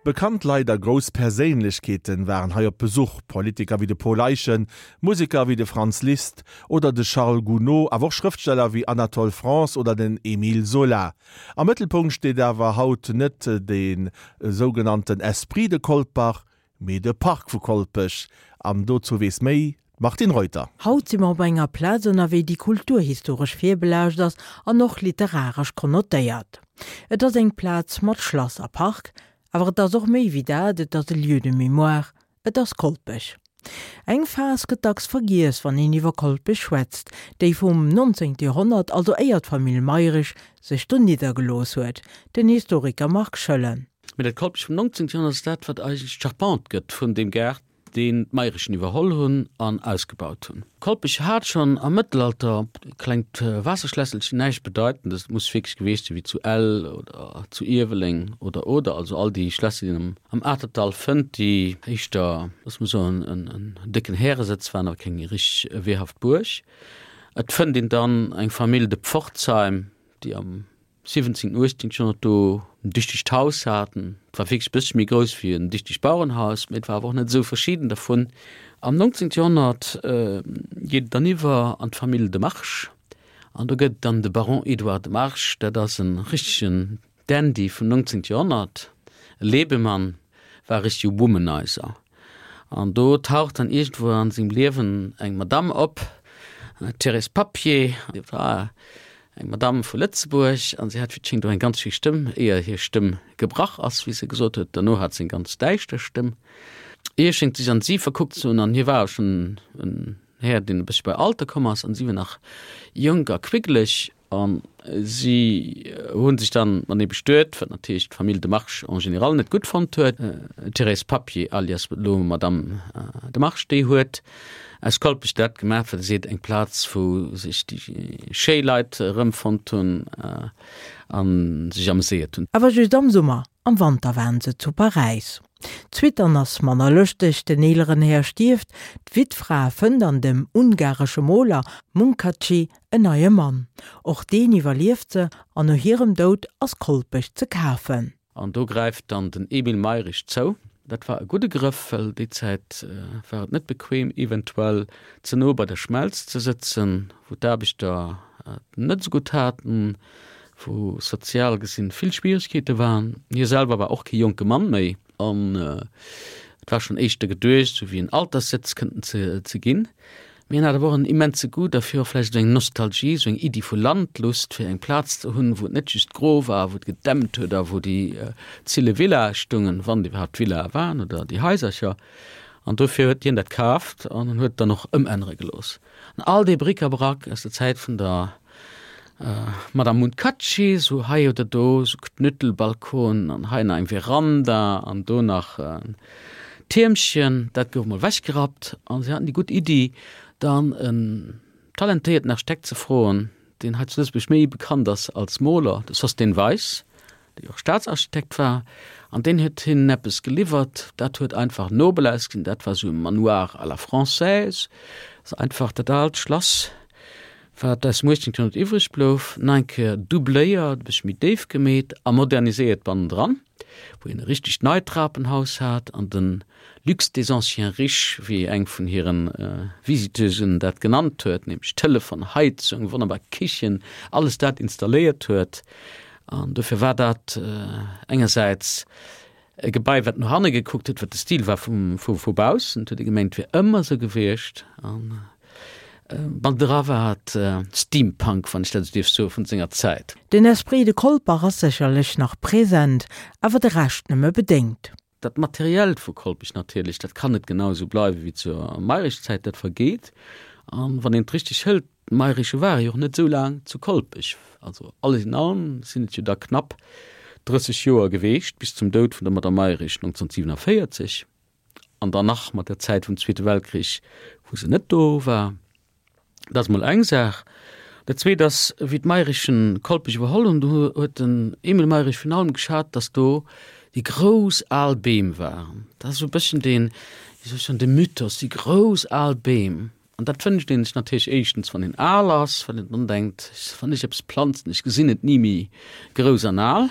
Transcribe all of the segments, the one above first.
Bekannt Leit a grouss Perséinlechkeeten waren hei op Besuch, Politiker wéi de Paul Eyschen, Museker wéi de Franz Liszt oder de Charles Gounod, awer och Schrëftsteller wéi Anatole France oder den Émile Zola. Am Mëttelpunkt steet awer haut net de sougenannten Esprit de Colpach, mee de Park vu Kolpech. An dozou weess méi d'Martine Reuter. Haut si mer op enger Plaz ënnerwee, déi kulturhistoresch virbelaascht ass an och literaresch konnotéiert. Et ass eng Plaz mat Schlass a Park, awer et ass och méi wéi dat, et ass e Lieu de mémoire, et ass Kolpech. Eng Phas gëtt dacks vergiess, wann een iwwer Kolpech schwätzt, déi vum 19. Joerhonnert, also éier d'Famill Mayrisch sech do niddergelooss huet, den Historiker Marc Schoellen. Mee dat Kolpech vum 19. Joerhonnert ass dat, wat eigentlech d'Charpente gëtt vun deem Gaart, deen d'Mayrichen iwwerholl hunn an ausgebaut hunn. Kolpech hat schonn am Mëttelalter e klengt Waasserschlässelchen, näischt Bedeitendes, et muss wierklech geweecht sinn wéi zu Ell oder zu Ierweleng oder oder, also all déi Schlässer, déi een am Atertdall fënnt, déi éischter, loosse mer soen, en décken Häresëtz waren, awer keng richteg wehrhaft Buerg. Et fënnt een dann eng Famill de Pforzheim, déi am 17, 18 Joerhonnert do en dichtegt Haus haten. Et war wierklech e bëssche méi grouss wéi en dichtegt Bauerenhaus, mee et war awer och net esou verschidden dervun. Am 19. Joerhonnert geet et dann iwwer an d'Famill de March an do gëtt et dann de Baron Edouard de March. Dat ass e richtegen Dandy vum 19. Joerhonnert, e Lebemann, war e richtege Womanizer. An do taucht dann iergendwou an sengem Liewen eng Madamm op, d'Thérèse Papier. Déi war eng Madamm vu Lëtzebuerg an si hat wéi et schéngt och eng ganz schéi Stëmm, éier hir Stëmm gebrach ass, wéi se gesot huet. Derno hat se eng ganz däischter Stëmm. Hie schéngt sech an si verkuckt ze hunn an hie war schonn en Här, deen e bëssche bei Alter komm ass an si war nach jonk a quickeleg. A si hu sech dann matenee bestuet, wat natierlech d'Famill de March en général net gutt fonnt huet. D'Thérèse Papier, alias elo Madame de March, déi huet aus Kolpech dat gemaach, wat e seet, eng Plaz, wou sech déi schéi Leit erëmfonnt hunn a sech ameséiert hunn. Awer just am Summer, am Wanter waren se zu Paräis. D'Suite dann ass manner lëschteg, den eeleren Här stierft, d'Wittfra fënnt an dem ungaresche Moler Munkácsy en neie Mann. Och deen iwwerlieft se an no hirem Doud ass Kolpech ze kafen. An do gräift dann den Emile Mayrisch zou. Dat war e gudde Grëff, well déi Zäit war et net bequem, eventuell ze no bei der Schmelz ze sëtzen, wou d'Aarbechter et net esou gutt haten, wou sozial gesinn vill Schwieregkeete waren. Hie selwer war och kee jonke Mann méi an et war schonn éischter geduecht, esou wéi en Alterssëtz kënnten ze ginn. Mee hien hat awer och en immense Goût derfir, och vläicht esou eng Nostalgie, esou eng Iddi vu Landlust, fir eng Plaz ze hunn, wou et net just gro war, wou et gedämpt huet a wou déi zille Villae stungen, wann et iwwerhaapt Villae waren oder déi Haisercher. An dofir huet hien dat kaaft an en huet et dann och ëmännere gelooss. An all dee Bric-à-brac aus der Zäit vun der Madame Munkácsy, sou hei oder do, sou Knüttelbalkonen an hei nach eng Veranda an do nach en Tiermchen, dat gouf mol wechgerappt. An si haten déi gutt Iddi, dann en talentéierten Architekt ze froen, deen hei zu Lëtzebuerg méi bekannt ass als Moler, de Sosthène Weis, dee jo och Staatsarchitekt war. An deen huet hinnen eppes geliwwert, dat huet einfach nobel ausgesinn, dat war sou e Manoir à la française, also einfach dat aalt Schlass, Wat aus dem 18. Joerhonnert iwwreg blouf, nach eng Kéier doubléiert, e bëssche méi déif gemeet a moderniséiert bannendran, wou een e richtegt neit Trapenhaus hat an de Luxe des anciens riches, wéi eng vun hire Visiteusen dat genannt huet, nämlech Telefon, Heizung, wonnerbar Kichen, alles dat installéiert huet. An dofir war dat engersäits E Gebai, wat no hanne gekuckt huet, wat de Stil war vum, vu, vu baussen. Et huet ee gemengt, et wier ëmmer esou gewiescht. An bannendra war et Steampunk, wann ech dat esou dierf soen, vun senger Zäit. Den Esprit de Colpach ass sécherlech nach present, awer de Rescht nëmme bedéngt. Dat Materiellt vu Kolpech natierlech, dat kann net genau esou bleiwe wéi zur Mayrisch-Zäit, dat vergeet. An wann een et richteg hëlt, D'Mayrische ware jo och net esou laang zu Kolpech, also alles in allem sinn et jo da knapp 30 Joer geweecht, bis zum Doud vun der Madame Mayrisch 1947, an dann nach mat der Zäit vum Zweete Weltkrich, wou se net do war. Dat ass mol eng Saach. Dat Zweet ass, wéi d'Mayrischen Kolpech iwwerholl hunn, do huet den Emile Mayrisch virun allem geschat, datt do déi grouss al Beem waren. Dat ass esou e bësschen deen, wéi soll ech soen, de Mythos, déi grouss al Beem. An dat wënscht een sech natierlech éischtens, wann een al ass, well een dann denkt, wann ech eppes planzen, ech gesinn et ni méi grouss an al.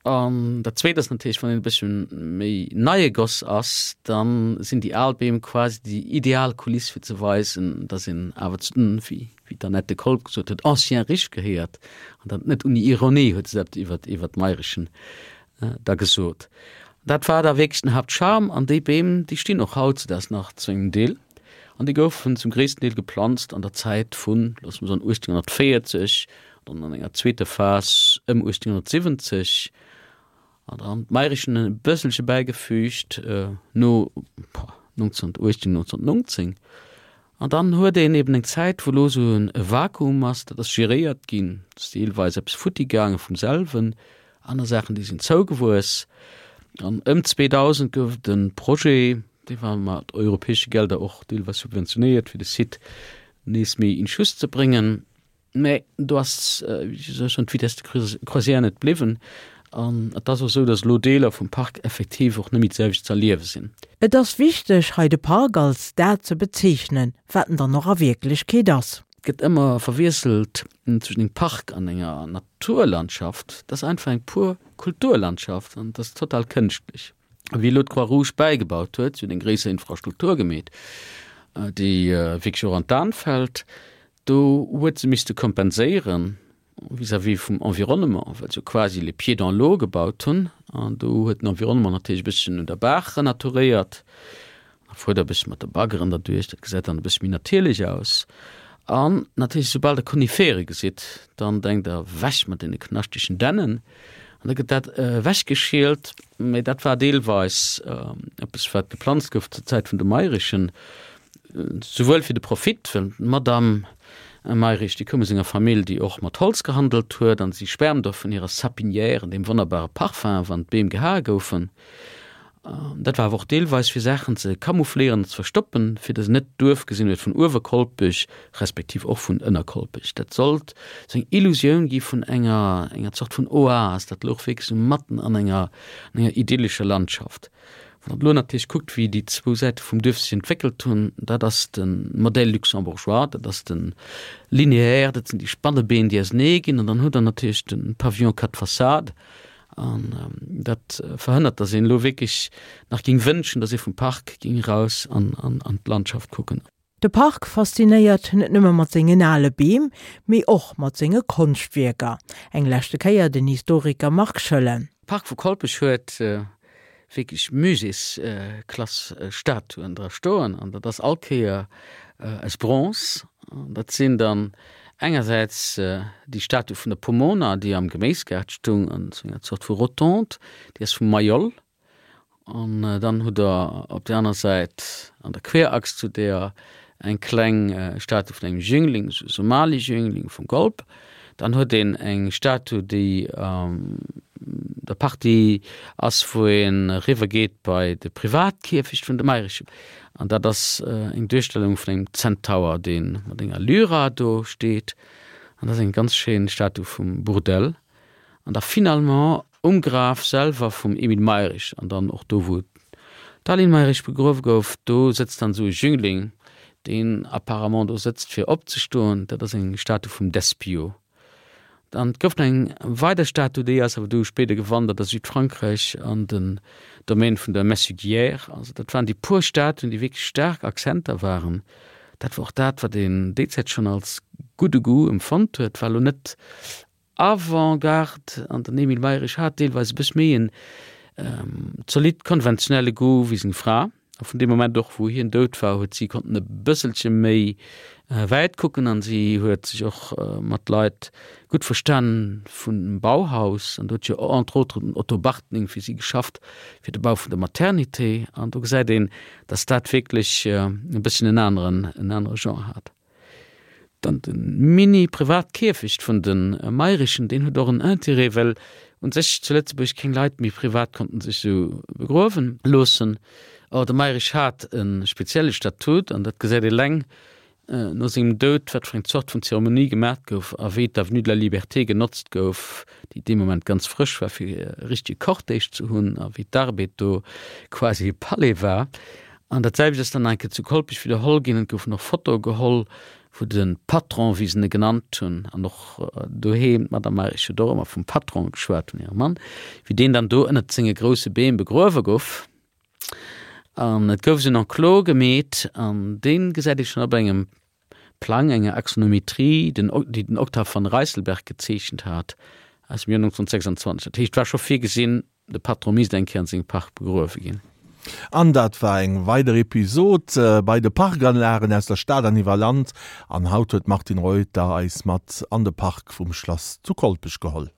An dat Zweet ass natierlech, wann een e bëssche méi neie Goss ass, da sinn déi al Beem quasi déi ideal Kuliss fir ze weisen, datt een awer zu den, wéi d'Annette Kolb gesot huet, anciens riches gehéiert. An dat net ouni Ironie huet se dat iwwer d'Mayrichen da gesot. Dat war da wierklech den Haaptcharme an déi Beem, déi stinn och hautzedaags nach zu engem Deel an déi goufen zum gréissten Deel geplanzt an der Zäit vun, loosse mer soen, 1840, dann an enger zweeter Phas ëm 1870 an dann d'Mayrichen e bësselche bäigefügt no 1918, 1919. An dann huet een eben eng Zäit, wou elo esou e Vakuum ass, dat ass geréiert ginn, et ass deelweis eppes futti gaange vum selwen, aner Saachen, déi sinn zougewuess. An ëm 2000 gouf et e Projet, dee war mat europäesche Gelder och deelweis subventionéiert, fir de Site nees méi in Schuss ze bréngen. Mä do ass, wéi soll ech soen, d'Vitesse de croisière net bliwwen. An et ass och esou, datt elo Deeler vum Park effektiv och net méi d'selwecht ze erliewe sinn. Et ass wichteg, hei de Park als dat ze bezeechnen, wat en dann och a Wierklechkeet ass. Et gëtt ëmmer verwiesselt zwëschen engem Park an enger Naturlandschaft. Dat ass einfach eng pur Kulturlandschaft an dat ass total kënschtlech. Wéi elo d'Croix-Rouge bäigebaut huet, si huet eng gréisser Infrastruktur gemeet, déi wierklech och an d'An fält, Do huet se misste kompenséieren vis-à-vis vum Environnement, well se jo quasi les pieds dans l'eau gebaut hunn. An do huet den Environnement natierlech e bësschen un der Baach renaturéiert. Da fuert der e bëssche mat de Baggeren derduerch, dat gesäit dann e bëssche méi natierlech aus. An natierlech, soubal der Konifere gesitt, dann denkt der, Ewech mat deene knaschtegen Dännen! An da gëtt dat ewechgeschielt. Mä dat war deelweis eppes, wat geplanzt gouf zur Zäit vun de Mayrichen. Souwuel fir de Profit, well d'Madame Mayrisch, déi koum aus enger Famill, déi och mat Holz gehandelt huet, an si schwärmt och vun hirer Sapinière, deem wonnerbare Parfum, wann d'Beem gehae goufen. Dat war awer och deelweis fir Saachen ze camoufléieren an ze verstoppen, fir datt een net d'Duerf gesinn huet vun Uewerkolpech, respektiv och vun Ënnerkolpech. Dat sollt sou eng Illusioun gi vun enger enger Zort vun Oas, dat louch wierklech sou matten an enger an enger idyllescher Landschaft. Wann Der elo natierlech kuckt, wéi déi zwou Säite vum Duerf sech entwéckelt hunn, dat ass de Modèle luxembourgeois, dat ass de Linéaire, dat sinn déi Spannebeen, déi ausenee ginn, an dann hutt Der natierlech de Pavillon quatre façades. An dat verhënnert, datt een elo wierklech nach géing wënschen, datt ee vum Park géing eraus an d'Landschaft kucken. De Park faszinéiert net nëmme mat sengen ale Beem, mee och mat senge Konschtwierker. Eng leschte Kéier den Historiker Marc Schoellen. De Park vu Kolpech huet wierklech Muséesklass Statuen dra stoen an dat ass all Kéier aus Bronze. An dat sinn dann engersäits déi Statue vun der Pomona, déi am Geméisgaart stung an esou enger Zort vu Rotonde, déi ass vum Mayol. An dann hutt Der op där aner Säit an der Querachs zu deeër eng kleng Statue vun engem Jüngling, esou e Somali-Jüngling vum Golp. Dann huet een eng Statue, déi an der Partie ass, wou ee eriwwer geet bei de Privatkierfecht vun de Mayrichen. An dat ass eng Duerstellung vun engem Zentaur, dee mat enger Lyra do steet. An dat ass eng ganz schéin Statue vum Bourdelle. An da finalement Um Graf selwer vum Emile Mayrisch an dann och do wou d'Aline Mayrisch begruewe gouf, do sëtzt dann esou e Jüngling, deen apparemment do sëtzt fir opzestoen. Dat ass eng Statue vum Despiau. Dann et gouf nach eng weider Statue, déi ass awer du spéider gewandert a Südfrankräich an den Domaine vun der Messuguière. Also dat waren déi puer Statuen, déi wierklech staark Akzenter waren. Dat war och dat, wat een déi Zäit schonn als gudde Goût empfonnt huet, war elo net Avant-Garde an den Emile Mayrisch hat deelweis e bëss méi en zolidd konventionelle Goût wéi seng Fra. A vun deem Moment och, wou hien dout war, huet si konnten e bësselche méi wäit kucken an si huet sech och mat Leit gutt verstan vum Bauhaus. An do huet jo entre autres den Otto Bartning fir si geschafft, fir de Bau vun der Maternité. An do gesäit een, datt dat wierklech e bësschen en aneren, en anere Genre hat. Dann de Mini-Privat-Kierfecht vun de Mayrichen, deen huet och en Intérêt, well un sech zu Lëtzebuerg keng Leit méi privat konnten sech esou begruewen loossen. Or, de Mayrisch hat e spezielle Statut, an dat gesäit eleng no sengem Doud, wat fir eng Zort vun Zeremonie gemat gouf a wéi d'Avenue de la Liberté genotzt gouf, déi dee Moment ganz frësch war, fir e richtege Cortège ze hunn, a wéi d'Arbed do quasi e Palais war. An dat selwecht ass dann nach eng Kéier zu Kolpech widderholl ginn. Et goufen och Fotoe geholl. Wou de Patron, wéi se e genannt hunn, an och doheem, d'Madame Mayrisch huet och ëmmer vum Patron geschwat, vun hirem Mann, wéi deen dann do ënnert senge grousse Beem begruewe gouf. An et gouf esou en Enclos gemeet, an dee gesäit ee schonn op engem Plang, enger Axonometrie, den, déi den Octave van Rysselberghe gezeechent hat, aus dem Joer 1926. Dat heescht, et war scho virgesinn, De Patron misst eng Kéier an sengem Park begruewe ginn. An dat war eng weider Episod bei de Parkanlagen aus der Stad an iwwer Land. An haut huet d'Martine Reuter eis mat an de Park vum Schlass zu Kolpech geholl.